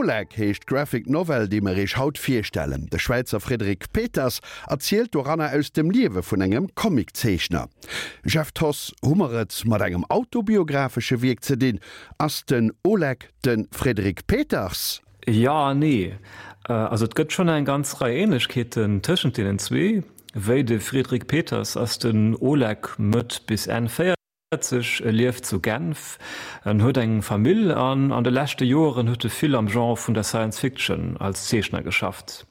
Oleg heescht d'Graphic Novel, déi mer iech haut virstellen. De Schwäizer Frédéric Peters erzielt doranner aus dem Liewe vun engem Comiczeechner. Jeff Thoss, hu mer et mat engem autobiographesche Wierk ze dinn? Ass den Oleg de Frédéric Peters? Jo an nee. Also et gëtt schonn eng ganz Rei Ähnlechkeeten tëschent deenen zwee. Wéi de Frédéric Peters ass den Oleg Mëtt bis Enn 40, e lieft zu Genf, en huet eng Famill an an de leschte Joeren huet e vill am Genre vun der Science Fiction als Zeechner geschafft.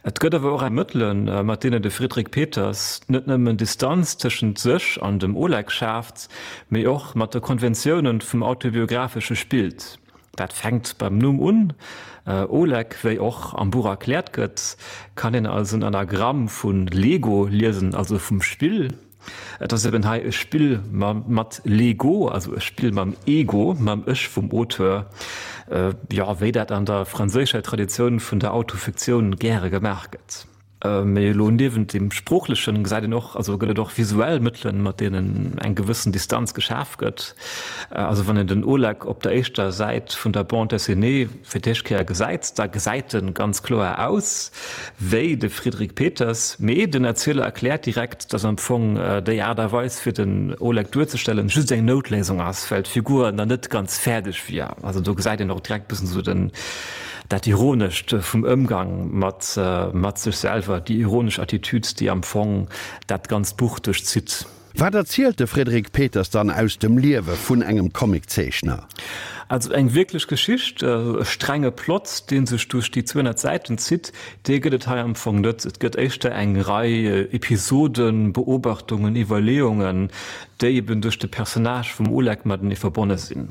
Et gëtt awer och eng Mëttelen, mat deenen de Frédéric Peters net nëmmen Distanz tëschent sech an dem Oleg schaaft, mee och mat de Konventiounen vum Autobiographesche spillt. Dat fänkt beim Numm un. Oleg, wéi och am Buch erkläert gëtt, kann een als en Anagramm vu Lego liesen, also vum Spill. Et ass eben hei e Spill mat Lego, also e Spill mam Ego, mam Ech vum Auteur, jo, wéi dat an der franséischer Traditioun vun der Autofiktioun gäre gemaach gëtt. Mee elo niewent deem Sproochlechen gesäit een och, also gëtt et och visuell Mëttelen, mat deenen eng gewëssen Distanz geschaf gëtt. Also wann een den Oleg op der éischter Säit vun der Bande dessinée fir d'éischt Kéier gesäit, da gesäit en ganz kloer aus wéi de Frédéric Peters, mee den Erzieler erkläert direkt, dass am Fong déi Aart a Weis fir den Oleg duerzestellen just eng Noutléisung ass, well d'Figur nach net ganz fäerdeg wier. Also do gesäit een och direkt bëssen esou den Dat Ironescht vum Ëmgang mat mat sech selwer, déi ironesch Attitüd, déi am Fong dat ganzt Buch duerchzitt. Wat erzielt de Frédéric Peters dann aus dem Liewe vun engem Comiczeechner? Also eng wierklech Geschicht, e strenge Plot, dee sech duerch déi 200 Säiten zitt, dee gëtt et hei am Fong net. Et gëtt éischter eng Rei Episoden, Beobachtungen, Iwwerleeungen, déi eben duerch de Personnage vum Oleg matenee verbonne sinn.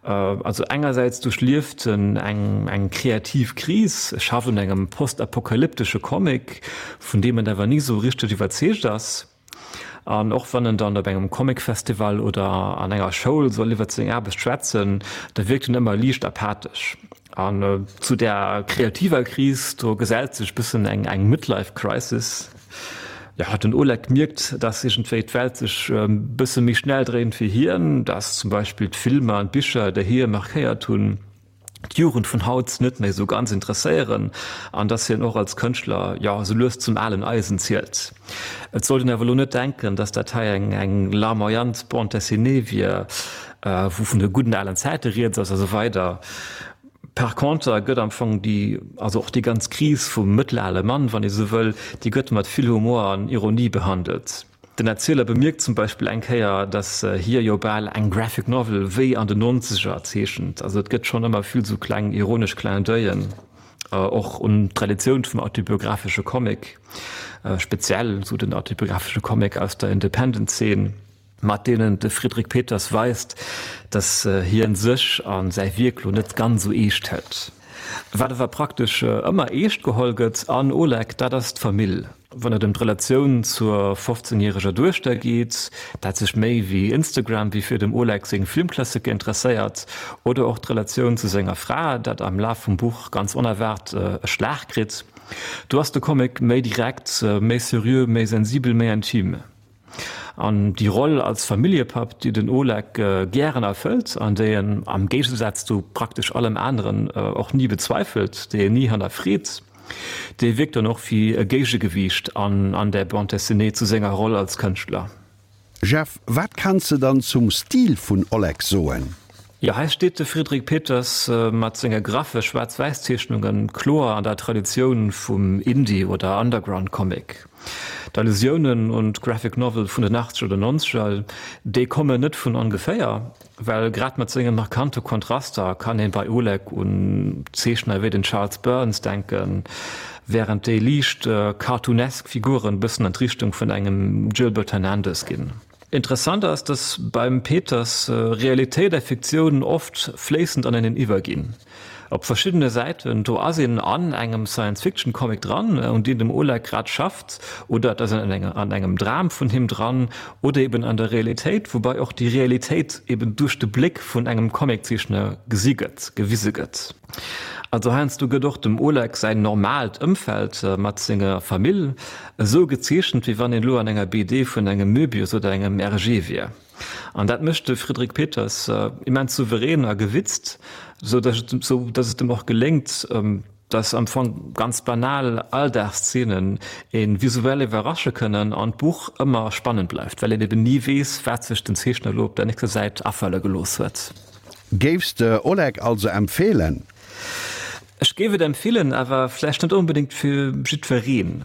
Also engersäits duerchlieft en eng kreativ Kris, e schafft un engem postapokalyptesche Comic, vun deem en awer ni sou richteg iwwerzeegt ass. An och wann en dann op engem Comicfestival oder an enger Schoul soll iwwert seng Aarbecht schwätzen, da wierkt en ëmmer liicht apathesch. An zu där kreativer Kris, do gesellt sech bëssen eng Midlife Crisis. Jo, den Oleg mierkt, dass iergendwéi d'Welt sech e bësse méi schnell dréint wéi hien, dass zum Beispill d'Filmer an d'Bicher, déi hie markéiert hunn, d'Jugend vun haut net méi esou ganz interesséieren an dass hien och als Kënschtler, jo, esou lues zum alen Eisen zielt. Et sollt een awer elo net denken, dass dat hei eng eng larmoyant Bande dessinée wier, wou vun de gudden alen Zäite rieds ass a sou weider. Par conter gëtt am Fong déi, also och déi ganz Kris vum mëttelale Mann, wann ee sou wëll, déi gëtt mat vill Humor an Ironie behandelt. Den Erzieler bemierkt zum Beispill eng Kéier, datt hie jo bal eng Graphic Novel wéi an den Nonzeger zeechent. Also et gëtt schonn ëmmer vill sou kleng ironesch Clin d'oeil'en, och un d'Traditioun vum autobiographesche Comic, speziell sou den autobiographesche Comic aus der Independent-Zeen. mat deenen de Frédéric Peters weist, datt hien sech a säi Wierk lo net ganz esou eescht hëlt. Wat awer praktesch ëmmer eescht geholl gëtt an Oleg, dat ass d'Famill. Wann et ëm d'Relatioun zur 15 järeger Duechter geet, dat sech méi wéi Instagram wéi fir dem Oleg seng Filmklassiker interesséiert, oder och d'Relatioun zu senger Fra, dat am Laf vum Buch ganz onerwaart e Schlag kritt, do ass de Comic méi direkt, méi seriö, méi sensibel, méi intim. An déi Roll als Familljepapp, déi den Oleg gären erfëllt an déi en am Géigesaz zu praktesch allem aneren och ni bezweifelt, déi en ni hannerfreet, déi wierkt dann och wéi e Géigegewiicht an der Bande dessinée zu senger Roll als Kënschtler. Jeff, wat kanns de dann zum Stil vun Oleg soen? Jo, hei steet de Frédéric Peters mat senge graffe Schwaarz-Wäiss-Zeechnunge kloer an der Traditioun vum Indie oder Underground-Comic. D'Allusiounen un d'Graphic Novel vun den Achtzeger oder Nonzeger, déi kommen net vun ongeféier, well grad mat senge markante Kontraster kann ee bei Oleg un Zeechner wéi den Charles Burns denken, wärend déi liicht cartoonesk Figuren bëssen an d'Richtung vun engem Gilbert Hernandez ginn. Interessant ass, dass beim Peters Realitéit a Fiktioun oft fléissend aneneen iwwerginn. Op verschiddene Säiten, do ass een an engem Science-Fiction-Comic dran, un deem dem Oleg grad schafft, oder et ass een an engem Dram vun him dran, oder eben an der Realitéit, woubai och déi Realitéit eben duerch de Bléck vun engem Comiczeechner gesi gëtt, gewise gëtt. Also heiansdo gëtt och dem Oleg säin normaalt Ëmfeld mat senger Famill esou gezeechent, wéi wann een elo an enger BD vun engem Möbius oder engem Hergé wier. An dat mécht de Frédéric Peters immens souverän a gewitzt, sou datt et em och geléngt, datt am Fong ganz banal Alldagsszenen ee visuell iwwerrasche kënnen an d'Buch ëmmer spannend bleift, well een eben ni weess, wat sech den Zeechner elo op der nächster Säit afale gelooss huet. Géifs de Oleg also empfeelen? Ech géif et empfeelen, awer vläicht net onbedéngt fir jiddwereen.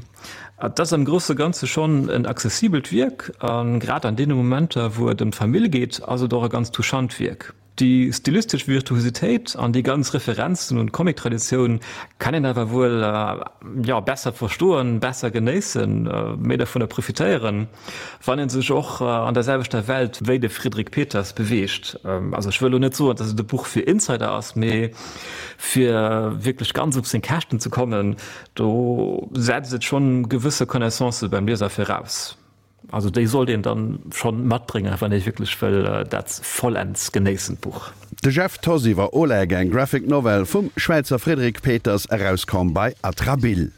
Et ass am grousse Ganze schonn en accessibelt Wierk, a grad an deene Momenter, wou et ëm d'Famill geet, ass et och e ganz touchant Wierk. Déi stilistesch Virtuositéit an déi ganz Referenzen un d'Comic-Traditioun kann een awer wuel, jo, besser verstoen, besser genéissen, méi dovunner profitéieren, wann ee sech och an der selwechter Welt wéi de Frédéric Peters beweegt. Also ech wëll elo net soen, datt et e Buch fir Insider ass, mee fir wierklech ganz op seng Käschten ze kommen, do setzt et schonn gewësse Connaissancë beim Lieser viraus. Also déi sollt een dann schonn matbréngen, wann ee wierklech wëll dat vollends genéissen, d'Buch. De Jeff Thoss iwwer Oleg, eng Graphic Novel vum Schwäizer Frédéric Peters, erauskomm bei Atrabile.